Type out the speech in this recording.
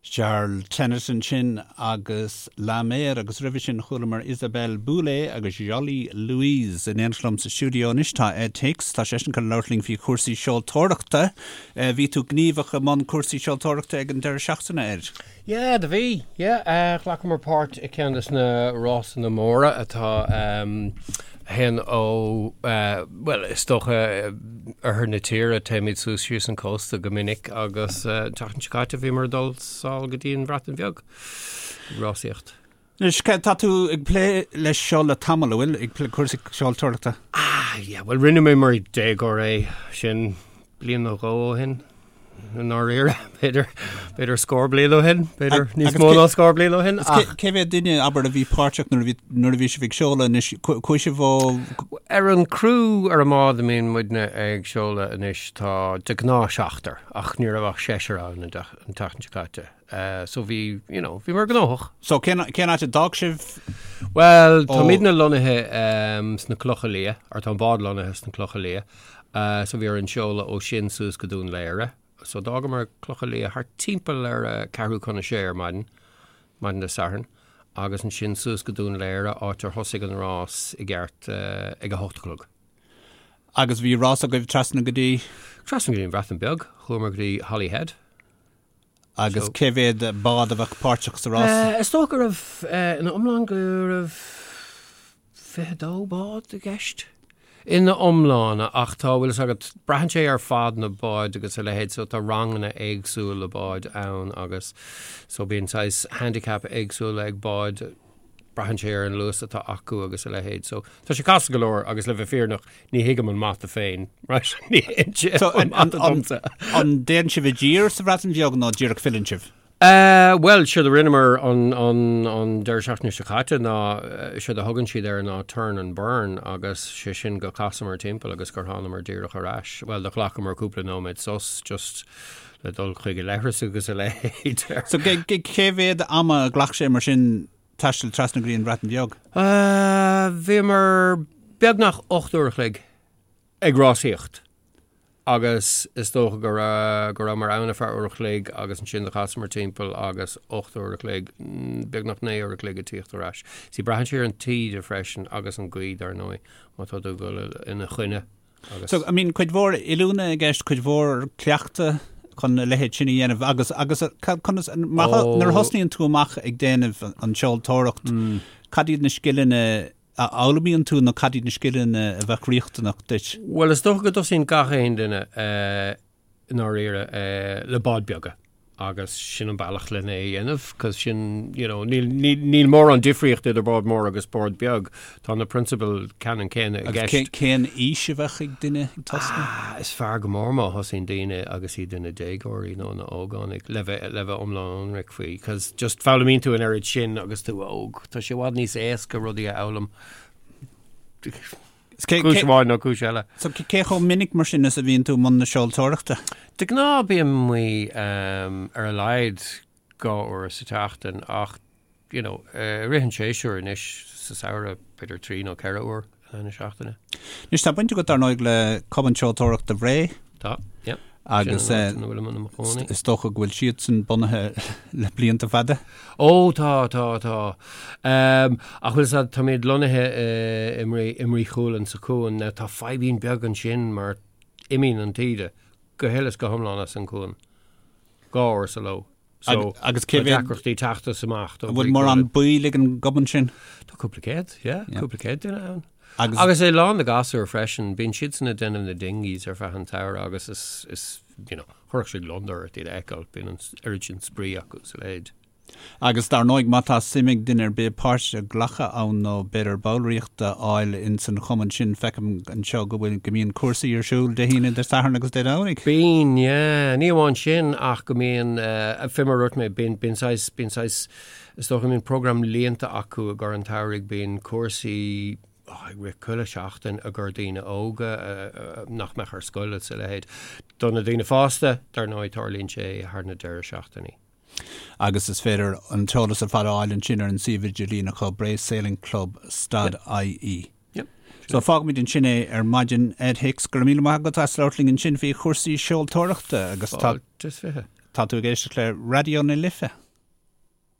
Charles Tennant ansin agus La Mer agus roimhe sin chualamar Isabelle Boulay agus Jolie Louise. In éineacht liom sa stiúideo anois tá Ed Hicks, tá seisean chun labhairt linn faoi chúrsaí seoltóireachta. Bhí tú gníomhach i mbun cúrsaí seoltóireachta ag an deireadh seachtaine, Ed? Yeah, do bhí. Yeah, ghlacamar páirt i ceann des na rásanna móra atá a théann ó, bhuel, is dócha oirthear na tíre, téimid suas síos an cósta go minic agus an tseachtain seo caite bhíomar ag dul sall go dtí an Bhreatain Bheag ag rásaíocht. Anois, tá tú ag plé leis seo le tamall, an bhfuil, ag plé cúrsaí seoltóireachta? Ah, yeah, bhuel rinne mé mar déagóir é sin bliain nó dhó ó shin. I ndáiríre, b'fhéidir, b'fhéidir scór bliain ó shin, b'fhéidir níos mó ná scór bliain ó shin. Ach cé mhéad duine, abair, a bhí páirteach nuair a bhí, nuair a bhí sibh ag seoladh anois, chuaigh sibh ó. Ar an criú ar an mbád a mbíonn muidne ag seoladh anois tá de ghnáth seachtar, ach ní raibh ach seisear ann an tseachtain seo caite. So bhí, you know, bhíomar gnóthach. So cén, cén áit a d'fhág sibh? Bhuel, táimidne lonnaithe sna Clocha Liath, or tá an bád lonnaithe sna Clocha Liath. So bhí orainn seoladh ó sin suas go Dún Laoghaire. So d'fhágamar Clocha Liath thart timpeall ar a ceathrú chun a sé ar maidin, maidin Dé Sathairn, agus ansin suas go Dún Laoghaire, áit ar thosaigh an rás i gceart ag a hocht a chlog. Agus bhí rás agaibh trasna go dtí? Trasna go dtí an Bhreatain Bheag. Chuamar go dtí Holyhead. Agus cé mhéad bád a bheadh páirteach sa rás? Is dócha go raibh, ina iomlán, go raibh 22 bád i gceist. Ina iomláine, ach tá, bhfuil fhios agat, braitheann sé ar fad na báid agus a leithéid, so tá ranganna éagsúla báid ann agus so bíonn saghas handicap éagsúla ag báid, braitheann sé ar an luas atá acu agus a leithéid. So tá sé casta go leor agus le bheith fírinneach ní thuigim an mata féin, right? Ní théann sé So an mata domsa. An dtéann sibh i dtír sa Bhreatain Bheag nó díreach filleann sibh? Uh, bhuel, séard a rinneamar an, an, an deireadh seachtaine seo caite ná, séard a thugann siad air ná turn and burn agus sé sin go casamar timpeall agus gur thánamar díreach ar ais. Bhuel, do ghlacamar cúpla nóiméad sos just le dul chuig an leithreas agus a leithéid. So cé mhéad ama a ghlac sé mar sin taisteal trasna go dtí an Bhreatain Bheag? Bhíomar beagnach 8 uair a chloig ag rásaíocht agus is dócha go raibh go rabhamar ann ar feadh uair a chloig agus ansin do chasamar timpeall agus 8 uair a chloig, beagnach 9 uair a chloig ag tíocht ar ais. See braitheann sé ar an taoide freisin agus an ghaoth dar ndóigh má tá tú ag dul ina choinne. Agus. So, I mean, cuid mhór oiliúna i gceist, cuid mhór cleachta chun a leithéid sin a dhéanamh agus, agus conas, mar, oh. nuair a thosnaíonn tú amach ag déanamh an seoltóireacht, mm. cad iad na scileanna a fhoghlaimíonn tú nó cad iad na scileanna a bheadh riachtanach duit? Bhuel, is dócha go dtosaíonn gach aon duine uh, i ndáiríre, le báid beaga agus sin an bealach lena é a dhéanamh, cos sin, you know, níl, níl, níl mórán difríocht idir bád mór agus bád beag, tá na prionsabail ceannann céanna i gceist. Agus cén aois a bheadh ag duine ag tosnú? Ah, is fearr go mór má thosaíonn daoine agus iad ina déagóirí nó ina ógánaigh, le bheith, le bheith iomlán ionraic faoi, cos just foghlaimíonn tú an oiread sin agus tú óg, tá sé i bhfad níos éasca rudaí a fhoghlaim. Cúis amháin nó cúis eile. So cé chomh minic mar sin is a bhíonn tú i mbun na seoltóireachta? De ghnáth bím amuigh ar a laghad 2 uair sa tseachtain ach you know i rith an tséasúir anois sa samhradh b'fhéidir 3 nó 4 uair in aghaidh na seachtaine. Anois tá baint agat dar ndóigh le Cumann Seoltóireachta Bhré. Tá, yeah. Agus is dócha go bhfuil siadsan bunaithe le blianta fada? Ó tá, tá, tá. Ach bhfuil fhios a'd, táimid lonnaithe i mBrí Chualann sa chuan. Now tá fadhbín beag ansin mar imíonn an taoide go huile is go hiomlán as an chuan dhá uair sa ló. So agus cé mhéad deacrachtaí teacht is amach An bhfuil mórán baill ag an gcumann sin? Tá cúpla céad, yeah, cúpla céad duine ann. Agus, agus é lán de ghasúir freisin, bíonn siadsan ag déanamh na dinghies ar feadh an tsamhraidh agus is, is, you know, chuirfeadh sé gliondar ort iad a fheiceáil, bíonn an oiread sin spraoi acu is a leithéid. Agus dar ndóigh má tá suim ag duine ar bith páirt a ghlacadh ann nó b'fhéidir ballraíocht a fháil ins an chumann sin, feicim anseo go bhfuil, go mbíonn cúrsaí ar siúl Dé hAoine, Dé Sathairn agus Dé Domhnaigh. Bíonn, yeah. Ní amháin sin ach go mbíonn, fé mar a dúirt mé, bíonn, bíonn saghas, bíonn saghas, is dócha go mbíonn program líonta acu i gcomhair an tsamhraidh, bíonn cúrsaí, oh, ag rith chuile sheachtain i gcomhair daoine óga nach mbeadh ar scoil is a leithéid. Do na daoine fásta, dar ndóigh, tarlaíonn sé thar na deireadh seachtainí. Agus is féidir an t-eolas ar fad a fháil ansin ar an suíomh idirlín acu, Bray Sailing Club stad IE. So fágfaimid ansin é ar maidin. Ed Hicks, go raibh míle maith agat as labhairt linn ansin faoi chúrsaí seoltóireachta agus tá. Fáilte is fiche. Tá tú ag éisteacht le Raidió na Life.